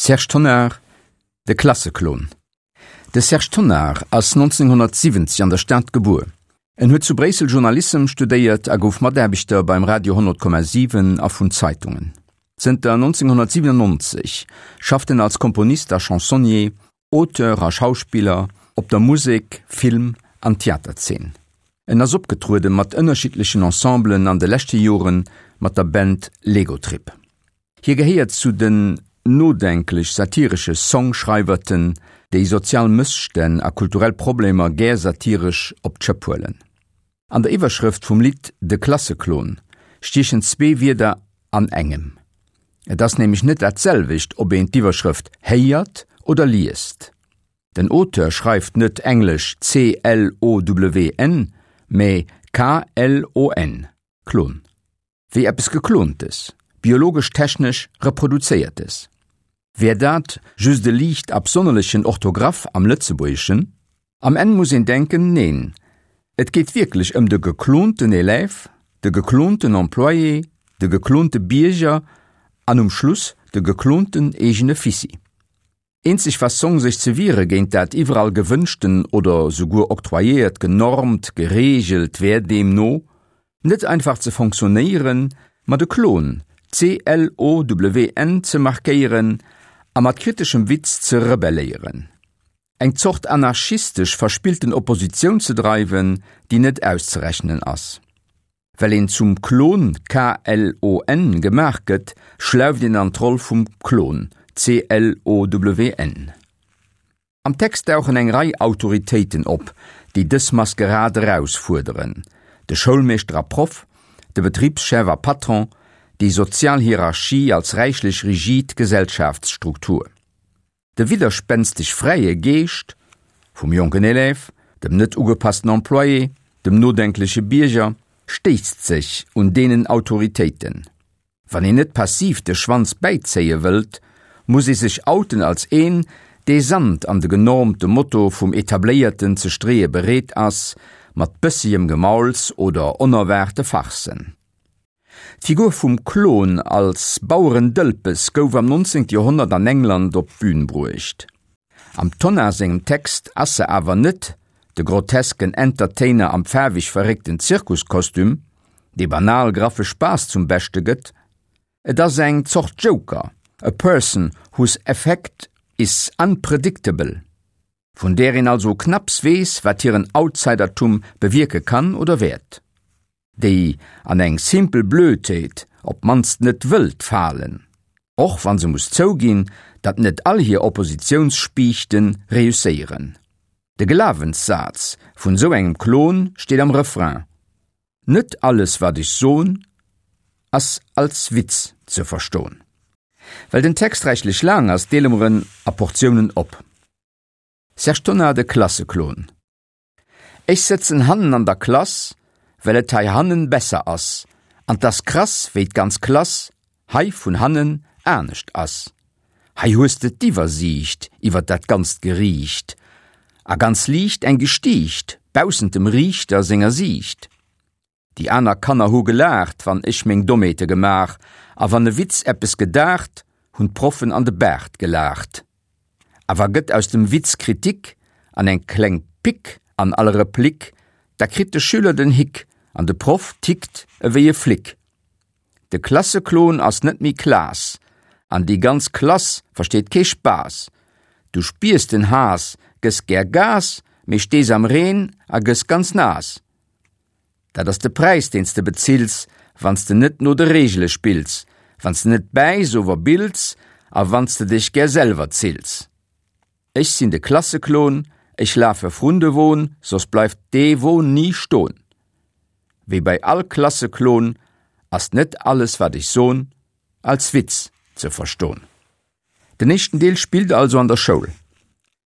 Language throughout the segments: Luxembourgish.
Serge Tonnar, De Klasseklon. De Serge Tonnar ass 1970 an der Stad gebuer. En huet zu Bréissel Journalissem studéiert a gouf Mataarbechter beim Radio 100,7 a vun Zeitungen. Zënter 1997 schafft en als Komponist a Chansonnier, Auteur a Schauspiller op der Musek-, Film an Theaterzeen. En ass opgetruede mat ënnerschiddlechen Ensemblen, an de leschte Jore mat der Band Legotrip. Hie gehéiert zu den nodenklech-satiresche Songschreiwerten, déi sozial Mësstänn a kulturell Problemer gär satiresch op d'Schëpp huelen. An der Iwwerschrëft vum Lidd De Klasseklon stiechen zwee Wierder an engem. Et ass nämlech net dat selwecht, ob een d'Iwwerschrëft héiert oder liest. Den Auteur schreift net englesch C-L-O-W-N, mä K-L-O-N, Klon. Wéi eppes Geklontes, biologesch-technesch Reproduzéiertes. Wär dat just e liicht absonnerlechen Orthograph am Lëtzebuergeschen? Am Enn muss een denken, neen, et geet wierklech ëm de geklonten Élève, de geklonten Employé, de geklonte Bierger an um Schluss de geklonten eegene Fissi. Eenzeg Fassong sech ze wiere géint dat iwwerall gewënschten oder souguer octroyéiert genormt, gereegelt wär deemno, net einfach ze fonctionnéieren, ma de Klon, C-L-O-W-N, ze markéieren a mat kriteschem Witz ze rebelléieren. Eng Zort anarchistesch verspillten Oppositioun ze dreiwen, déi net auszerechnen ass. Well een zum Klon, K-L-O-N, gemaach gëtt, schläuft een an d'Roll vum Klon, C-L-O-W-N. Am Text dauchen eng Rei Autoritéiten op, déi dës Maskerad erausfuerderen, de Schoulmeeschter a Proff, de Betribschef a Patron, déi sozial Hierarchie als räichlech rigid Gesellschaftsstruktur. De widderspänsteg fräie Geescht vum jonken Élève, dem net ugepassten Employé, dem nodenkleche Bierger stéisst sech un deenen Autoritéiten. Wann een net passiv de Schwanz bäizéie wëllt, muss ee sech outen als een, dee Sand an de genormte Motto vum Etabléierten ze streeë bereet ass, mat bëssegem Gemauls oder onerwaarte Farcen. D'Figur vum Klon als Bauerendëlpes gouf am 19. Joerhonnert an England op d'Bün bruecht. Am Tonnar sengem Text ass se awer net de grotesken Entertainer am faarweg verréckten Zirkuskostüm, dee banal graffe Spaass zum Beschte gëtt. Et ass eng Zort Joker, a person whose effect is unpredictable, vun där een also knapps weess, wat hiren Outsidertum bewierke kann oder wäert. déi an eng simpel Blödheet op d'mannst net wëllt falen, och wa se muss zouginn, datt net all hir Oppositiounsspiichte reusséieren. De Glawenssaz vun esou engem Klon steet am Refrain, Net alles wat ech son, ass als Witz ze verston. Well den Text räichlech laang ass, deele mer en a Portiounen op. Serge Tonnar, De Klasseklon. Ech sëtzen hannen an der Klass, well et hei hannen besser ass, an 't ass krass, wéi d'ganz Klass hei vun hannen anescht ass. Hei hues de d'Iwwersiicht iwwer dat ganzt Geriicht, a ganz liicht eng Gestiicht baussent dem Riichter senger Siicht. Déi aner Kanner hu gelaacht, wann ech meng Dommheete gemaach, a wann e Witz eppes gedaacht, hunn d'Proffen an de Baart gelaacht. Awer gëtt aus dem Witz Kritik an eng kleng Pick an all Replik, da kritt de Schüler den Hick an de Proff tickt ewéi e Flick. De Klasseklon ass net méi Klaas an déi ganz Klass versteet kee Spaass. Du spiers den Haass, gëss gär Gas, mee stees am Reen a gëss ganz naass. Dat ass de Präis deen s de bezills, wann s de net no de Reegele spills, wann s de net bäiss ower bills a wann s de dech gär selwer zills. Ech sinn de Klasseklon, ech lafe vrun de Won, soss bleift dee Won ni ston. Wéi bei all Klasseklon ass net alles wat ech son als Witz ze verston. Den éischten Deel spillt also an der Schoul.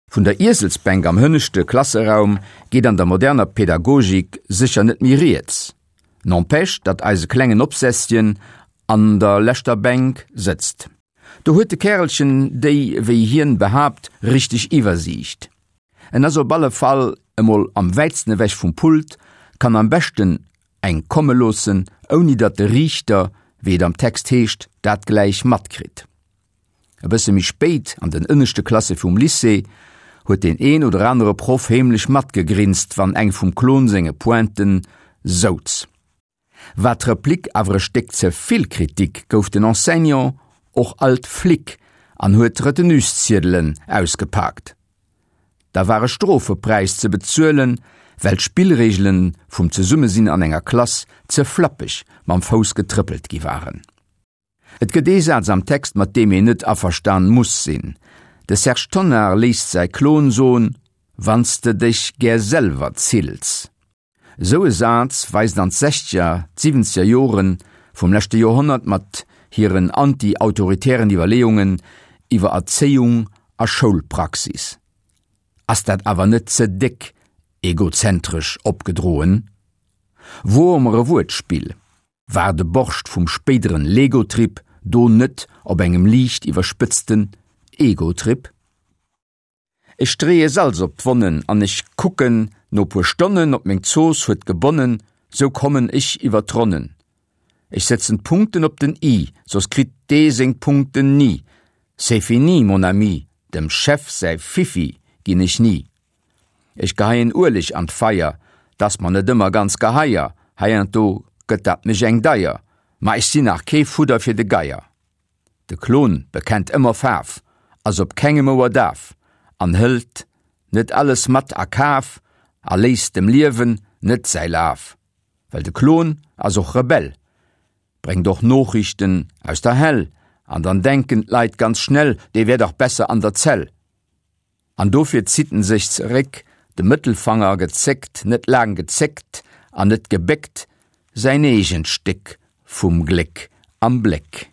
Vun der Ieselsbänk am hënneschte Klasseraum geet an der moderner Pädagogik sécher net méi rieds. N'empêche, datt eise klengen Obsesschen an der leschter Bänk sëtzt. Do huet de Kärelchen déi, wéi hien behaapt, richteg Iwwersiicht. En ass op alle Fall emol am wäitsten ewech vum Pult, kann am beschten eng komme loossen, ouni datt de Riichter, wéi et am Text heescht, dat gläich matkritt. E bësse méi spéit, an den ënneschte Klasse vum Lycée, huet deen een oder anere Proff heemlech matgegrinst, wann eng vum Klon senge Pointen souz. War d'Replik awer e Stéck ze vill Kritik, gouf den Enseignant och alt Flic an huet d'Retenusziedelen ausgepaakt. Da war e Strofepräis ze bezuelen, well d'Spillreegelen vum Zesummesinn an enger Klass ze flappeg mam Fouss getrëppelt gi waren. Et gëtt ee Saz am Text, mat deem een net averstan muss sinn. De Serge Tonnar léisst säi Klon soen, Wann s de dech gär selwer zills. Esou e Saz weist an d'Sechzeger, d'Siwwenzeger Jore vum leschte Joerhonnert mat hiren anti-autoritären Iwwerleeungen iwwer Erzéiung a Schoulpraxis. Ass dat awer net ze déck egozentresch opgedroen? Woer mer e Wuertspill. War de Borscht vum spéideren Legotrip do net op engem liicht iwwerspëtzten Egotrip? Ech streeë Salz op d'Wonnen an ech kucken no puer Stonnen op meng Zooss huet gebonnen, sou kommen ech iwwer d'Ronnen. Ech setzen d'Punkten op den i, soss kritt dee seng Punkten ni. C'est fini, mon ami, dem Chef säi Fiffi ginn ech ni. Ech geheien Ueleg an d'Feier, 't ass mer net ëmmer ganz geheier, heiansdo gëtt dat mech eng deier, ma ech sinn nach kee Fudder fir de Geier. De Klon bekennt ëmmer Faarf, ass op kengem Ouer daf an hëlt net alles mat a Kaf a léisst dem Liewen net säi Laf. Well de Klon ass och Rebell, bréngt och Noochrichten aus der Hell an dann denken d'Leit ganz schnell, dee wär dach besser an der Zell. An dofir zitt en sech zeréck, de Mëttelfanger gezéckt, net laang gezéckt an net gebéckt, säin eegent Stéck vum Gléck am Bléck.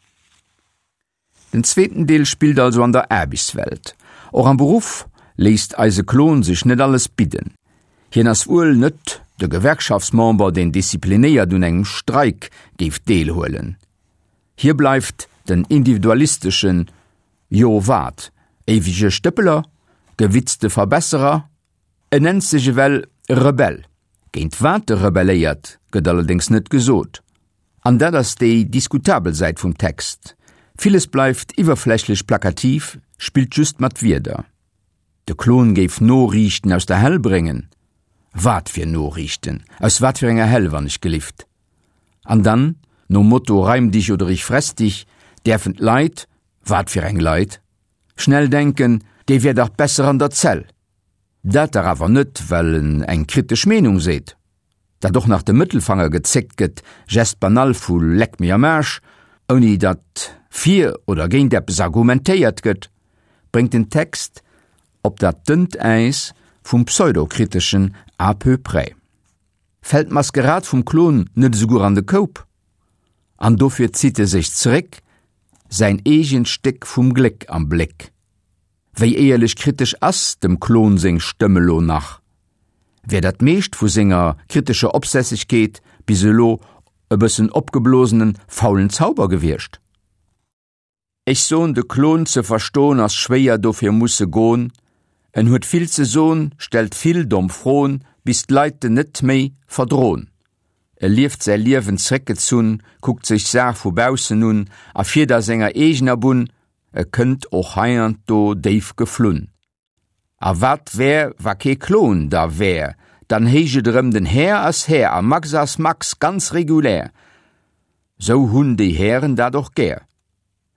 Den zweeten Deel spillt also an der Aarbechtswelt. Och am Beruff léisst eise Klon sech net alles bidden. Hien ass wuel net de Gewerkschaftsmember, deen disziplinéiert un engem Streik géif deelhuelen. Hie bleift den individualisteschen, Jo wat? Éiwege Stëppeler? Gewitzte Verbesserer? En nennt sech ewell Rebell. Géint wat e rebelléiert, gëtt allerdéngs net gesot. An dat ass déi diskutabel Säit vum Text. Villes bleift iwwerflächlech plakativ, spillt just mat Wierder. De Klon géif Noriichten aus der Hell bréngen? Wat fir Noriichten? Aus wat fir enger Hell, wann ech gelift? An dann, nom Motto Reim dich oder ich fress dich, däerfen d'Leit, wat fir eng Leit? Schnell denken, dee wär dach besser an der Zell. Dat dach awer net, well en eng kritesch Meenung seet. Dat och nach de Mëttelfanger gezéckt gëtt, Geste banal vu Leck mir am Aarsch, ouni datt fir oder géint eppes argumentéiert gëtt, bréngt den Text op dat dënnt Äis vum Pseudokriteschen à peu près. Fält d'Maskerad vum Klon net esouguer an de Koup? An dofir zitt e sech zeréck, säin eegent Stéck vum Gléck am Bléck. Wéi éierlech kritesch ass dem Klon seng Stëmm elo nach? Wär dat meescht vu senger kritescher Opsässegkeet bis elo e bëssen opgeblosenen, faulen Zauber gewiescht? Ech son de Klon ze verston ass schwéier dofir muss e gon en huet vill ze son stellt vill domm Fron bis d'Leit en net méi verdron e lieft säi Liewen zréckgezunn kuckt sech d'Saach vu baussen un a fiert a senger eegener Bunn e kënnt och heiansdo déif geflunn. A wat wär, wa kee Klon da wär? Dann héich et erëm, den Här ass Här a Max ass Max, ganz regulär. Sou hunn déi Hären dat och gär.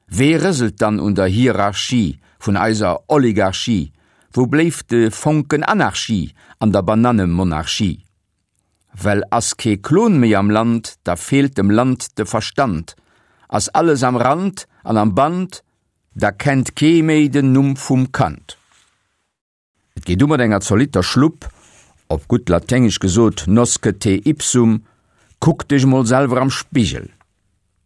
Wee rëselt dann un der Hierarchie vun eiser Oligarchie? Wou bléift de Fonken Anarchie an der Banannemonarchie? Well ass kee Klon méi am Land, da feelt dem Land de Verstand. Ass alles am Rand an am Band, Da kennt kee méi den Numm vum Kand. Et geet u mat enger zolitter Schlupp, op gutt Laténgesch gesot nosce te ipsum, kuck dech mol selwer am Spigel.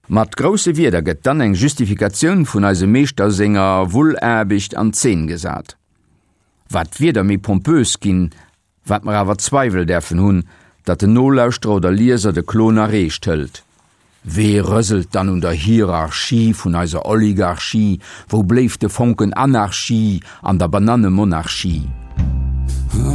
Mat grousse Wierder gëtt dann eng Justifikatioun vun eisem Meeschter senger Wullaarbecht an Zeen gesat. Wat d'Wierder méi pompös ginn, Wat mer awer Zweiwel däerfen hunn, datt den Nolauschterer oder Lieser de Klon erreecht hëlt. Wee rëselt dann un der Hierarchie vun eiser Oligarchie? Wou bléift de Fonken Anarchie an der Banannemonarchie?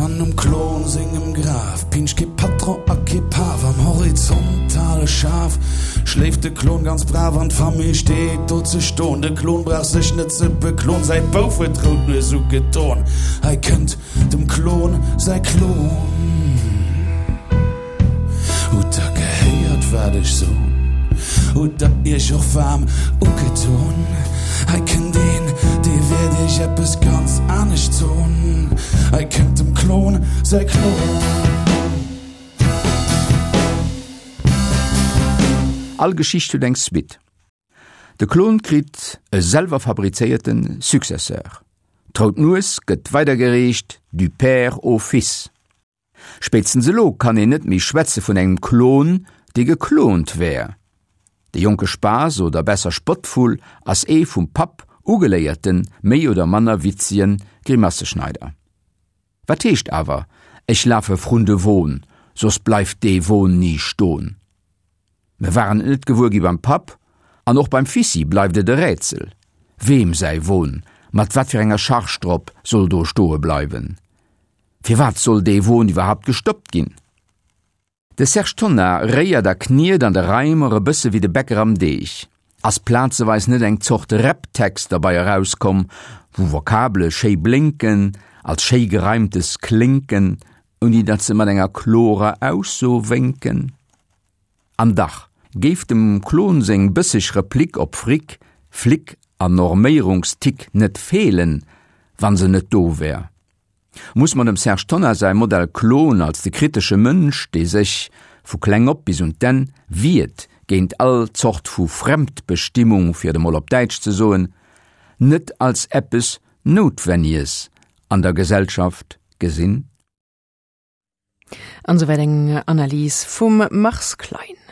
An um Klon sengem Graf pinscht kee Patron a kee Paf. Am horizontale Schaf schléift de Klon ganz brav an d'Famill steet do ze ston. De Klon brauch sech net ze beklon, säi Bouf huet d'rout Nues ugedon. Hei kënnt dem Klon säi Klon. Hutt der gehéiert wat ech son? Hutt der iech och waarm ugeton? Hei kënnt een, dee wäert iech eppes ganz anescht son. Hei kënnt dem Klon säi Klon. All Geschicht huet eng Suite. De Klon kritt e selwer fabrizéierte Successeur. D'rout Nues gëtt weidergereecht du père au fils. Spéitstens elo kann een net méi schwätze vun engem Klon, dee geklont wär. De jonke Spaass oder besser Spottvull ass ee vum Papp ugeléierten, méi oder manner witzegen Grimasseschneider. Wat heescht awer, Ech lafe vrun de Won, soss bleift dee Won ni ston? Mer waren et net gewuer gi beim Papp, an och beim Fissi bleift et e Rätsel, weem säi Won mat wat fir enger Charge drop soll do stoe bleiwen. Firwat soll dee Won iwwerhaupt gestoppt ginn? De Serge Tonnar réiert a kniet an de Reimer e bësse wéi de Bäcker am Deeg. Ass plazeweis net eng Zort Rap-Text derbei erauskomm, wou Vokabele schéi blénken, als schéi Gereimtes klénken, ouni datt se mat enger klorer Ausso wénken? An dach géif dem Klon seng bësseg Replik op Fric, Flic an Norméierungstick net feelen, wa se net do wär. Muss mer dem Serge Tonnar säi Modell Klon als de kritesche Mënsch, dee sech, vu kleng op bis un d'Enn, wiert géint all Zort vu Fremdbestimmung, fir et emol op Däitsch ze soen, net als eppes Noutwenniges an der Gesellschaft gesinn? An esouwäit eng Analys vum Mars Klein.